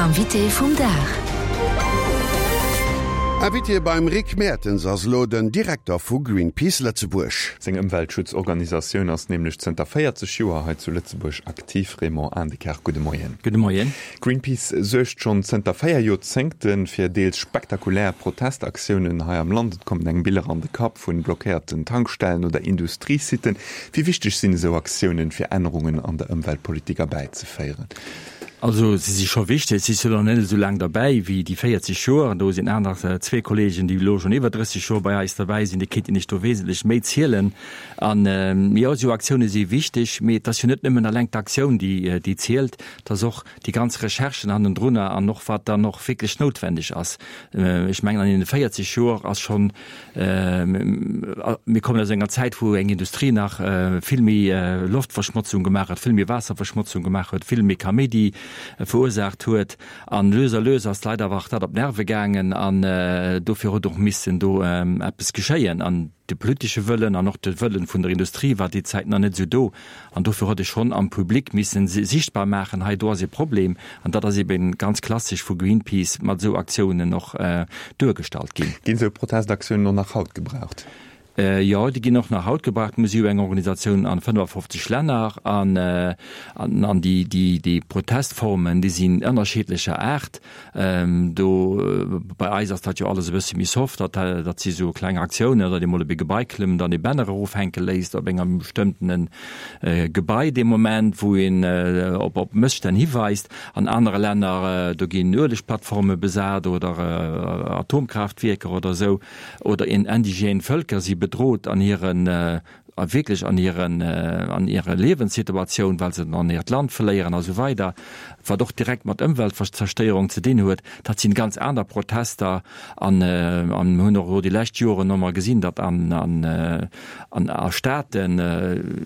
Invité vum Dag. Invité beim Rick Mertens ass elo den Direkter vu Greenpeace Lëtzebuerg. Seng Ëmweltschutzorganisatioun ass nämlech zënter 40 Joer hei zu Lëtzebuerg aktiv. Raymond Aendekerk, gudde Moien. Gudde Moien. Greenpeace suergt schonn zënter 4 Joerzéngte fir deels spektakulär Protestaktiounen hei am Land. Et kommen engem Biller an de Kapp vu blockéierten Tankstellen oder Industriesitten. Wéi wichteg sinn esou Aktiounen, fir Ännerungen an der Ëmweltpolitik erbäizeféieren? Also se si scho wichteg. Si sinn och net esou laang derbäi wéi déi 40 Joer. Do sinn aner zwee Kollegen, déi elo schonn iwwer 30 Joer bei eis derbäi sinn, déi kéinten Iech do wesentlech méi zielen. An jo, esou Aktioune si wichteg, mee et ass jo net nëmmen eleng d'Aktioun, déi déi zielt, et ass och déi ganz Recherchen hannendrunner an och wat dann och wierklech noutwendeg ass. Ech mengen an deene 40 Joer ass schonn Mir kommen aus enger Zäit, wou eng Industrie nach vill méi Loftverschmotzung gemaach huet, vill méi Waasserverschmotzung gemaach huet, vill méi Kaméidi verursaacht huet. An lues a lues ass d'Leit awer och dat op d'Nerve gaangen an dofir huet och missen do eppes geschéien. An de politesche Wëllen an och de Wëllen vun der Industrie war déi Zäit nach net esou do. An dofir huet e schonn am Public missen sichtbar maachen, hei do ass e Problem. An dat ass eben ganz klassesch vu Greenpeace mat esou Aktiounen och duergestallt ginn. Ginn esou Protestaktiounen och nach haut gebraucht? Jo, déi ginn och nach haut gebraucht. Mir si jo eng Organisatioun an 55 Länner an an déi Protestformen, déi sinn ënnerscheedlecher Aart. Do bei eis ass dat jo alles e bësse méi soft, dat dat si sou kleng Aktiounen, datt ee mol op ee Gebai klëmmt an ee Banner erofhänke léisst op engem bestëmmtene Gebai dee Moment, wou een op op Mësstänn hiweist. An anere Länner, do ginn Uelegplattforme besat oder Atomkraaftwierker oder esou oder indigène Vëlker si bedrot an hiren a wierklech an hiren, an hirer Liewenssituatioun, well se dann hiert Land verléieren a sou weider, wat och direkt mat Ëmweltzerstéierung ze dinn huet, dat sinn ganz aner Protester. An, an mir hunn och elo déi lescht Joren ëmmer gesinn, datt an, an, an a Staaten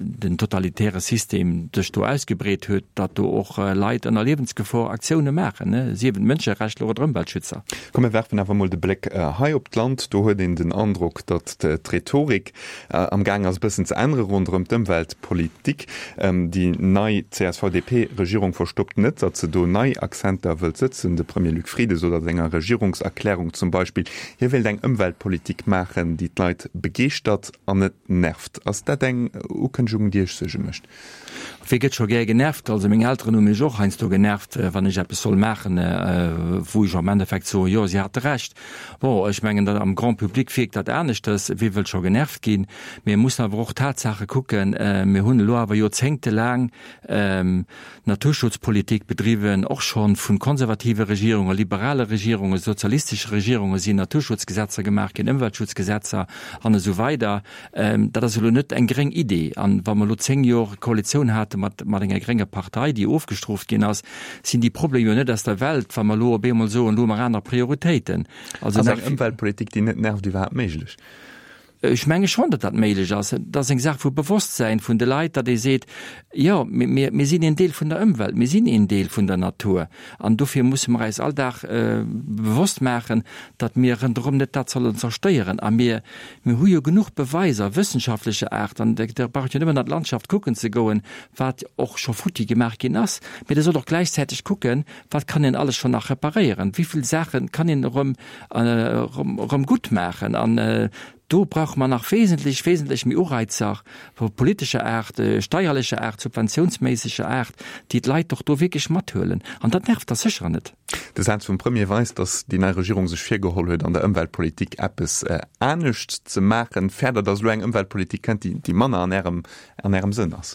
den totalitäre System sech do ausgebreet huet, datt do och Leit ënner Liewensgefor Aktioune maachen, sief et Mënscherechtler oder Ëmweltschützer. Komm mir werfen awer emol de Bléck hei op d'Land. Do huet een den Androck, datt d'Rhetorik Am gaang ass e bëssen ze ännere ronderëm d'Ëmweltpolitik. Déi nei CSV-DP-Regierung verstoppt net, datt se do nei Accenter wëllt sëtzen. De Premier Luc Frieden sot a senger Regierungserklärung zum Beispill, hie wéilt eng Ëmweltpolitik maachen, déi d'Leit begeeschtert an net nervt. Ass dat eng Ukënnegung, déi Iech Suerge mécht? Wie gëtt scho gär genervt? Also meng Elteren hu mech och heiansdo genervt, wann ech eppes soll maachen, wou ech am Endeffekt soen, jo, si hate Recht. Bon, ech mengen, dat am Grand public wierkt dat aneschters, wie wëll scho genervt ginn? Mee mir mussen awer och d'Tatsaache kucken. Mir hunn elo awer joerzéngtelaang Naturschutzpolitik bedriwwen, och scho vu konservative Regierungen, liberale Regierungen, sozialistesche Regierunge sinn Naturschutzgesetzer gemaach ginn, Ëmweltschutzgesetzer an esou weider. Dat ass elo net eng gréng Idee. An wa mer elo 10 Jor Koalitioun hate mat mat enger grénger Partei, déi ofgestrooft ginn ass, sinn déi Problemer jo net aus der Welt, wa mer elo op eemol soen, elo hu mer aner Prioritéiten. Also Ass eng Ëmweltpolitik, déi net nervt, iwwerhaapt méiglech? Ech menge schonn, datt dat méiglech ass. Et ass eng Saach vu Bewosstsäin vun de Leit, datt ee seet, jo, mir mir sinn een Deel vun der Ëmwelt, mir sinn een Deel vun der Natur. An dofir musse mer eis all Dag bewosst maachen, datt mir ronderëm net dat sollen zerstéieren. A mir Mir hu jo genuch Beweiser wëssenschaftlecher Aart, an Der braucht jo nëmmen an d'Landschaft kucken ze goen, wat och scho futti gemaach ginn ass. Mee Der sollt och gläichzäiteg kucken, wat kann een alles schonn nach reparéieren, wéi vill Saache kann een erëm, erëm gutt maachen. An do brauche mer nach wesentlech, wesentlech méi Ureizer politescher Aart, steierlecher Aart, subventiounsméisseger Aart, déi d'Leit och do wierklech mathuelen. An dat nervt da sécher net. De Saz vum Premier weist, datt déi nei Regierung sech virgeholl huet, an der Ëmweltpolitik eppes anescht ze maachen. Fäert Der, datt elo eng Ëmweltpolitik kënnt, déi manner an Ärem, an Ärem Sënn ass?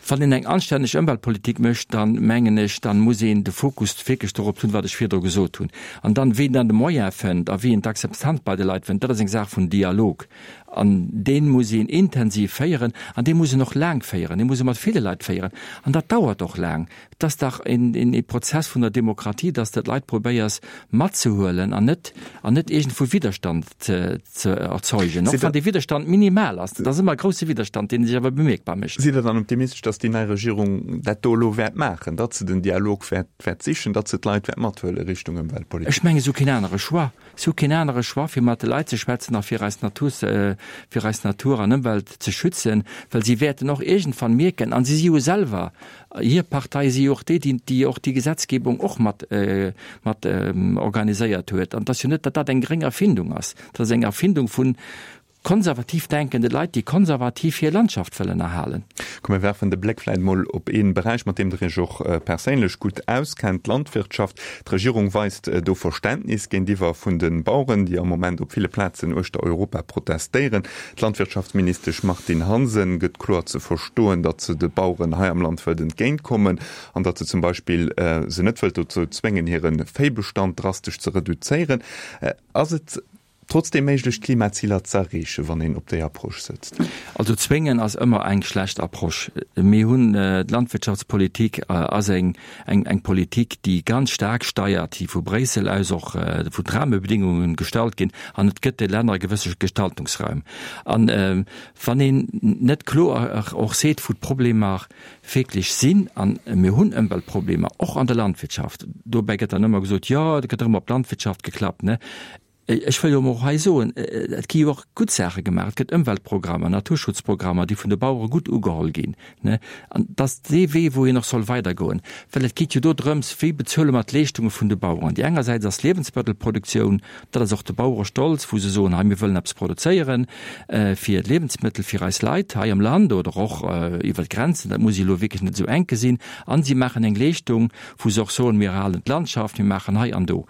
Wann een eng anstänneg Ëmweltpolitik mécht, dann, mengen ech, dann muss een de Fokus wierklech dorop hunn, wat ech virdru gesot hunn. An dann, wien dann de Moyen fënnt a wien d'Akzeptanz bei de Leit fënnt, dat ass eng Saach vun Dialog. An dee muss een intensiv féieren an dee muss een och laang féieren, dee muss ee mat ville Leit féieren an dat dauert och laang. Et ass dach een Prozess vun der Demokratie, dass de d'Leit probéiers matzehuelen an net an net iergendwou Widderstand ze ze erzeugen, och wann dee Widderstand minimal ass. Et ass ëmmer e grousse Widderstand, dee sech awer bemierkbar mécht. Sidd Der dann optimistesch, dass déi nei Regierung dat do elo wäert maachen, datt se den Dialog wäert wäert sichen, datt se d'Leit wäert mathuele Richtung Ëmweltpolitik? Ech menge se hu keen anere Choix. Si hu keen anere Choix, fir mat de Leit ze schwätzen a fir eis Natur ze. fir eis Natur an Ëmwelt ze schützen, well si wäerten och iergendwann mierken, an si si jo selwer, hir Partei si jo och déi, déi, déi och déi Gesetzgebung och mat, mat organiséiert huet, an et ass jo net, datt dat eng gréng Erfindung ass, dat ass eng Erfindung vun konservativ denkende Leit, déi konservativ hir Landschaft wëllen erhalen. Komm mir werfen de Bléck vläit mol op ee Beräich, mat deem Der Iech och perséinlech gutt auskennt, d'Landwirtschaft. D'Regierung weist do Verständnis géintiwwer vun de Baueren, déi am Moment op ville Plazen uechter Europa protestéieren. D'Landwirtschaftsministesch Martine Hansen gëtt kloer ze verstoen, datt se de Baueren hei am Land wëllt entgéintkommen an datt se zum Beispill se net wëllt dozou zwéngen, hire Véibestand drastesch ze reduzéieren. Ass et Trotzdem méiglech d'Klimaziler z'erreechen, wann een op déi Approche sëtzt? Also zwéngen ass ëmmer eng schlecht Approche. Mir hunn, d'Landwirtschaftspolitik ass eng eng Politik, déi ganz staark steiert, déi vu Bréissel aus och vu d'Rahmebedingungen gestallt ginn an et gëtt de Länner e gewësse Gestaltungsraum. An wann een net kloer och seet, wou d'Problemer wierklech sinn, an mir hunn Ëmweltproblemer och an der Landwirtschaft, dobäi gëtt dann ëmmer gesot, jo, et gëtt erëm op d'Landwirtschaft geklappt, ne. Ech wëll jo och hei soen, et gi jo och gutt Saache gemaach. Et gëtt Ëmweltprogrammer, Naturschutzprogrammer, déi vun de Bauere gutt ugeholl ginn. An et ass dee Wee, wou een och soll weidergoen, well et geet jo do drëms, wéi bezuele mer d'Leeschtunge vun de Baueren. Déi engersäits ass d'Liewensmëttelproduktioun, dat ass och de Bauerestolz, wou se soen, hei mir wëllen eppes produzéieren fir Liewensmëttel fir eis Leit hei am Land oder och iwwer d'Grenzen, dat muss ee elo wierklech net esou enk gesinn. An si maachen eng Leeschtung, wou se och soen, mir erhalen d'Landschaft, mir maachen hei an do.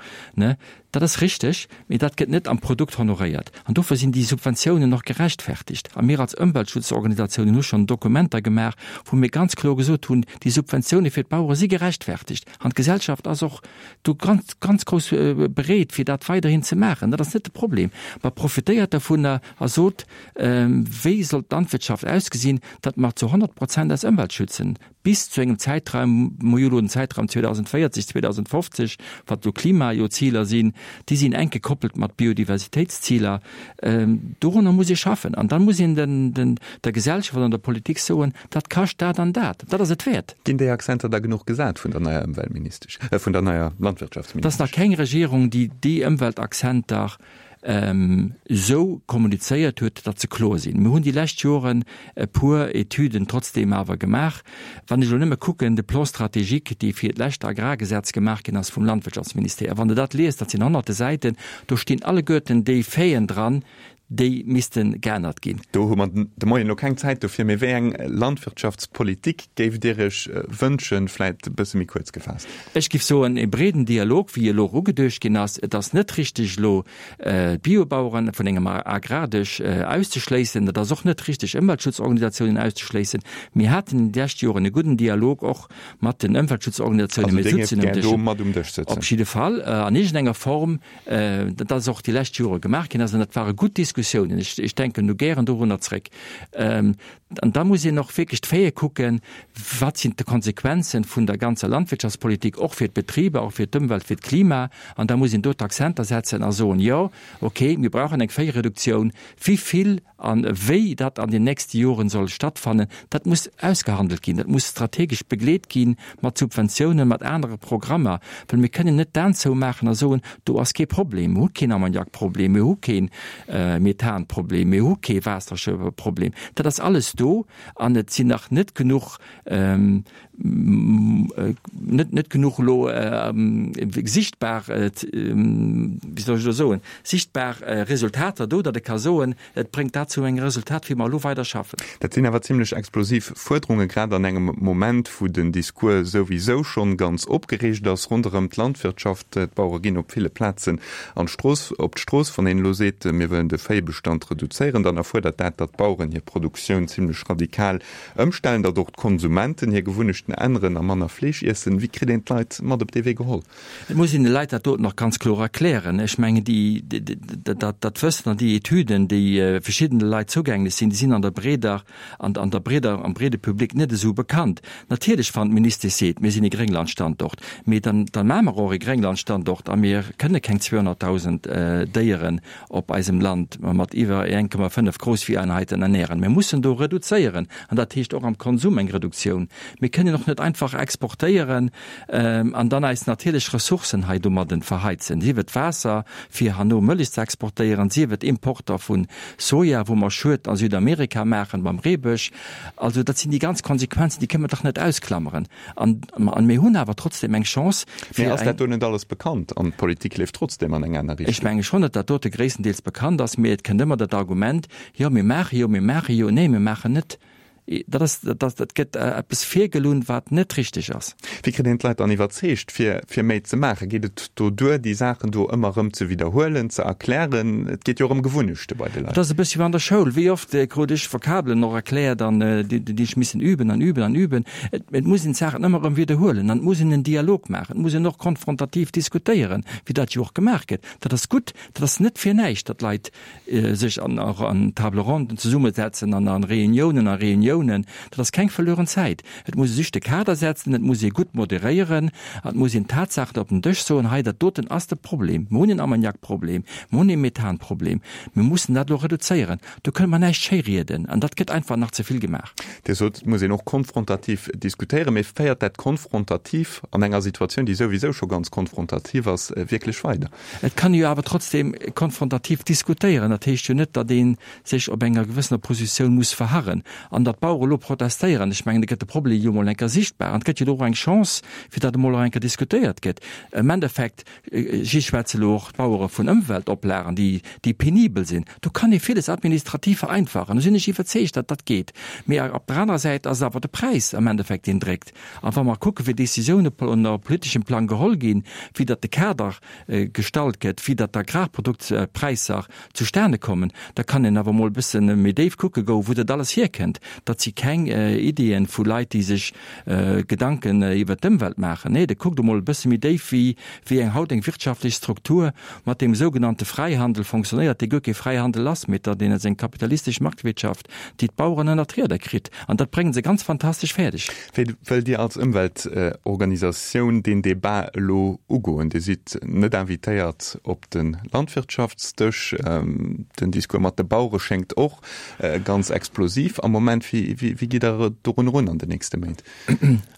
Dat ass richteg, mee dat gëtt net am Produkt honoréiert. An dofir sinn déi Subventiounen och gerechtfertigt. A mir als Ëmweltschutzorganisatiounen hu schonn Dokumenter gemaach, wou mir ganz kloer gesot hunn, déi Subventioune fir d'Bauere si gerechtfertigt. An d'Gesellschaft ass och do ganz, ganz grouss bereet, fir dat weiderhin ze maachen. Dat ass net de Problem. Mä profitéiert dovunner a sot, Wéi soll d'Landwirtschaft ausgesinn, datt mer zu 100 Prozent eis Ëmwelt schützen? Bis zu engem Zäitraum, mer hu jo elo den Zäitraum 2040, 2050, wat elo Klimajoziler sinn, déi sinn enk gekoppelt mat Biodiversitéitsziler. Dorunner muss ee schaffen. An da muss een den, der Gesellschaft an der Politik soen, dat kascht dat an dat. Dat ass et wäert. Ginn déi Accenter da genuch gesat vun der neier Ëmweltministesch, vun der neier Landwirtschaftsministesch? Et ass nach keng Regierung, déi déi Ëmweltaccenter esou kommunizéiert huet, datt se kloer sinn. Mir hunn déi lescht Joren e puer Etüden trotzdeem awer gemaach. Wann ech elo nëmme kucken, de Plan stratégique, dee fir d'lescht Agrargesetz gemaach ginn ass vum Landwirtschaftsministère, wann Der dat liest, dat sinn honnerte Säiten, do stinn alleguerten déi Faiten dran, déi misste geännert ginn. Do hu mer de Moien elo keng Zäit dofir, mee wéi eng Landwirtschaftspolitik géift Dir Iech wënschen, vläit e bësse méi kuerz gefaasst? Ech géif soen, e breeden Dialog, wéi elo och ugeduecht ginn ass. Et ass net richteg, elo d'Biobaueren vun engem Agrardësch auszeschléissen. Et ass och net richteg, Ëmweltschutzorganisatiounen auszeschléissen. Mir haten déi lescht Joren e gudden Dialog och mat den Ëmweltschutzorganisatiounen. Also Dir géift gär do mat um Dësch sëtzen? Op jidde Fall, an iergendenger Form. Dat ass och déi lescht Jore gemaach ginn ass an dat ware gutt Diskussiounen. Ech denken do gären dorunner zréck. An da muss een och wierklech d'Faite kucken, Wat sinn d'Konsequenzen vun der ganzer Landwirtschaftspolitik, och fir d'Betriber, och fir d'Ëmwelt, fir d'Klima? An da muss een do d'Accenter setzen a soen, Jo, okay, mir brauchen eng Véireduktioun. Wéi vill a wéi dat an den nächste Joren soll stattfannen, dat muss ausgehandelt ginn, dat muss strategesch begleet gi mat Subventiounen, mat anere Programmer, well mir kënnen net d'Aen zoumaachen a soen, do ass kee Problem, mir hu keen Ammoniakproblem, mir hu kee Methanproblem, mir hu kee Waasserproblem. Dat ass alles do an et sinn nach net genuch net net genuch elo sichtbar, wéi soll ech elo soen, sichtbar Resultater do, datt e ka soen, et bréngt dat zu engem Resultat, wéi mer elo weider schaffen. Dat sinn awer zimlech explosiv Fuerderungen, grad an engem Moment, wou den Discours souwisou schonn ganz opgereegt ass ronderëm d'Landwirtschaft. D'Bauere ginn op ville Plazen an d'Strooss, op d'Strooss. Wann een elo seet, mir wëllen de Véibestand reduzéieren, dann erfuerdert dat, datt d'Baueren hir Produktioun zimlech radikal Ëmstellen, datt och d'Konsumenten hir Gewunnechten änneren a manner Fleesch iessen. Wéi kritt een d'Leit mat op dee Wee geholl? Et muss een de Leit dat doten och ganz kloer erklären. Ech mengen, déi, dat, dat Wëssen an déi Etüden, déi verschiddene Leit zougänglech sinn, déi sinn an der breeder, an, an der breeder, am breede Public net esou bekannt. Natierlech, wann d'Ministesch seet, mir sinn e Grénglandstandort, mee dann, dann maache mer och e Grénglandstandort a mir kënne keng 200.000 Déieren op eisem Land. mat iwwer 1,5 Groussvieheinheiten ernähren. Mir mussen do reduzéieren, an dat heescht och am Konsum eng Reduktioun. Mir kënnen och net einfach exportéieren an dann eis natierlech Ressourcen hei domadden verheizen, sief et Waasser, fir herno Mëllech ze exportéieren, sief et Importer vu Soja, wou mer Schued a Südamerika maachen beim Reebësch. Also dat sinn déi ganz Konsequenzen, déi kënnen mer dach net ausklammeren. An mir hunn awer trotzdem eng Chance, fir eng. Mee ass dat do net alles bekannt an d'Politik leeft trotzdem an eng aner Richtung? Ech menge schonn, datt dat dote gréisstendeels bekannt ass, mee et kënnt ëmmer dat Argument, Jo, mir maache jo, mir maache jo. Nee, mir maachen net. Dat ass, dat, dat gëtt eppes virgelunn, wat net richteg ass. Wéi kritt een d'Leit dann iwwerzeegt, fir, fir méi ze maachen? Geet et do duer, déi Saachen do ëmmer erëm ze widderhuelen, ze erklären? Et geet jo och ëm Gewunnechte bei de Leit. Et ass e bëssche wéi an der Schoul. Wéi oft krut ech Vokabelen och erkläert an déi, déi ech missen üben an üben an üben. Et, et muss een d'Saachen ëmmer erëm widderhuelen an et muss een en Dialog maachen. Et muss een och konfrontativ diskutéieren, wéi dat jo och gemaach gëtt. Dat ass gutt. Dat ass net fir näischt, datt Leit sech an och an Table ronden zesummesetzen an an Reuniounen a Reuniounen, dat ass keng verlueren Zäit. Et muss ee sech de Kader setzen, et muss ee gutt moderéieren an et muss een d'Tatsaachen op den Dësch soen, hei dat doten ass de Problem, mir hunn en Ammoniakproblem, mir hunn e Methanproblem, mir mussen dat elo reduzéieren. Do kënne mer näischt schéirieden an dat gëtt einfach nach ze vill gemaach. Dir sot, et muss een och konfrontativ diskutéieren, mee féiert dat konfrontativ an enger Situatioun, déi souwisou scho ganz konfrontativ ass, wierklech weider? Et kann ee jo awer trotzdem konfrontativ diskutéieren. Dat heescht jo net, datt ee sech op enger gewëssener Positioun muss verharren. An datt d'Bauere elo protestéieren, ech mengen, da gëtt de Problem jo emol eng Kéier sichtbar an et gëtt jo elo och eng Chance, fir datt emol och eng Kéier diskutéiert gëtt. Am Endeffekt, si schwätze elo och d'Bauere vun Ëmweltoplagen, déi, déi penibel sinn. Do kann ee villes administrativ vereinfachen. Do sinn ech iwwerzeegt, datt dat geet. Mee op der anerer Säit ass et awer de Präis am Endeffekt, deen dréckt. A wa mer kucken, wéi Décisiounen op politeschem Plang geholl ginn, wéi datt de Kader gestallt gëtt, wéi datt d'Agrarproduktpräisser zustane kommen, da kann een awer emol e bësse méi déif kucke goen, wou dat alles hierkënnt. Dat si keng Ideeën vu Leit, déi sech Gedanken iwwert d'Ëmwelt maachen. Nee, da kuckt emol e bësse méi déif, wéi wéi eng haut eng wirtschaftlech Struktur mat deem sougenannte Fräihandel fonctionnéiert, dee guer kee Fräihandel ass, mee datt een ass eng kapitalistesch Marktwirtschaft, déi d'Baueren ënner d'Rieder kritt. An dat bréngen se ganz fantastesch fäerdeg. Wéi wëllt Dir als Ëmweltorganisatioun deen Debat elo ugoen? Dir sidd net invitéiert op de Landwirtschaftsdësch. Den Discours mat de Bauere schéngt och ganz explosiv am Moment. Wéi gitt Der dorun erun an den nächste Méint?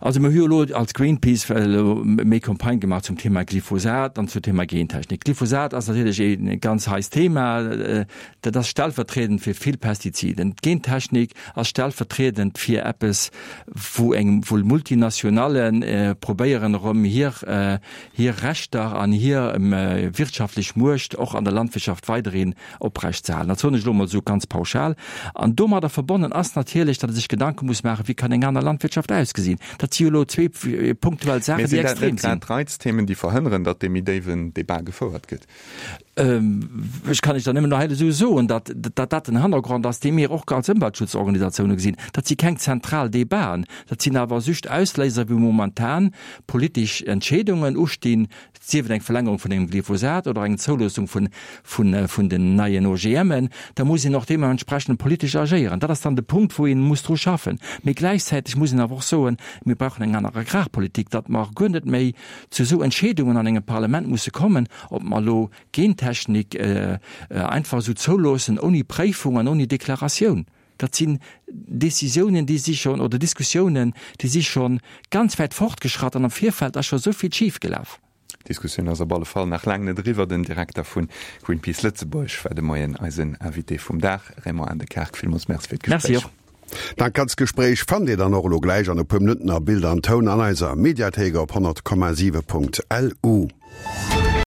Also mir hu jo elo als Greenpeace elo méi Campagne gemaach zum Thema Glyphosat an zum Thema Gentechnik. Glyphosat ass natierlech ee ganz heisst Thema. Dat ass stellvertriedend fir vill Pestiziden. D'Gentechnik ass stellvertriedend fir eppes, wou eng, wou Multinationale probéieren erëm hir, hir Rechter an hir wirtschaftlech Muecht och an der Landwirtschaft weiderhin oprecht ze halen. Dat soen ech elo emol esou ganz pauschal. An domadder verbonnen ass natierlech, datt ee sech Gedanke muss maachen, wéi kann eng aner Landwirtschaft ausgesinn. Dat si jo elo zwee punktuell Saachen, déi extrem sinn. Mee sinn dat net grad d'Reizthemen, déi verhënneren, datt dee méi déiwen Debat gefouert gëtt? Ech kann lech dann nëmmen nach hei esou soen, datt datt dat den Hannergrond ass, dee mir och als Ëmweltschutzorganisatioune gesinn. Dat si keng zentral Debaten, dat sinn awer just Ausléiser, wou momentan politesch Entscheedungen ustinn, sief et eng Verlängerung vun engem Glyphosat oder eng Zouloossung vun vun den neien OGMen. Da muss een och deementsprechend politesch agéieren. Dat ass dann de Punkt, wou ee muss dru schaffen. Mee gläichzäiteg muss een awer och soen, mir brauchen eng aner Agrarpolitik, datt mer guer net méi zu esou Entscheedungen an engem Parlament musse kommen, ob mer elo Gentechnik einfach esou zouloossen, ouni Préifung an ouni Deklaratioun. Dat sinn Décisiounen, déi si schonn, oder Diskussiounen, déi si scho ganz wäit fortgeschratt an am Virfeld ass scho esou vill schifgelaf. D'Diskussioun ass op alle Fall nach laang net eriwwer. Den Direkter vu Greenpeace Lëtzebuerg war de Moien eisen Invité vum Dag. Raymond Aendekaart, villmools Merci fir d'Gespréich. Merci och. Dat ganzt Gespréich fannt Dir dann och elo gläich an e puer Minutten a Bild an Toun an eiser Mediathéik op 100,7.lu.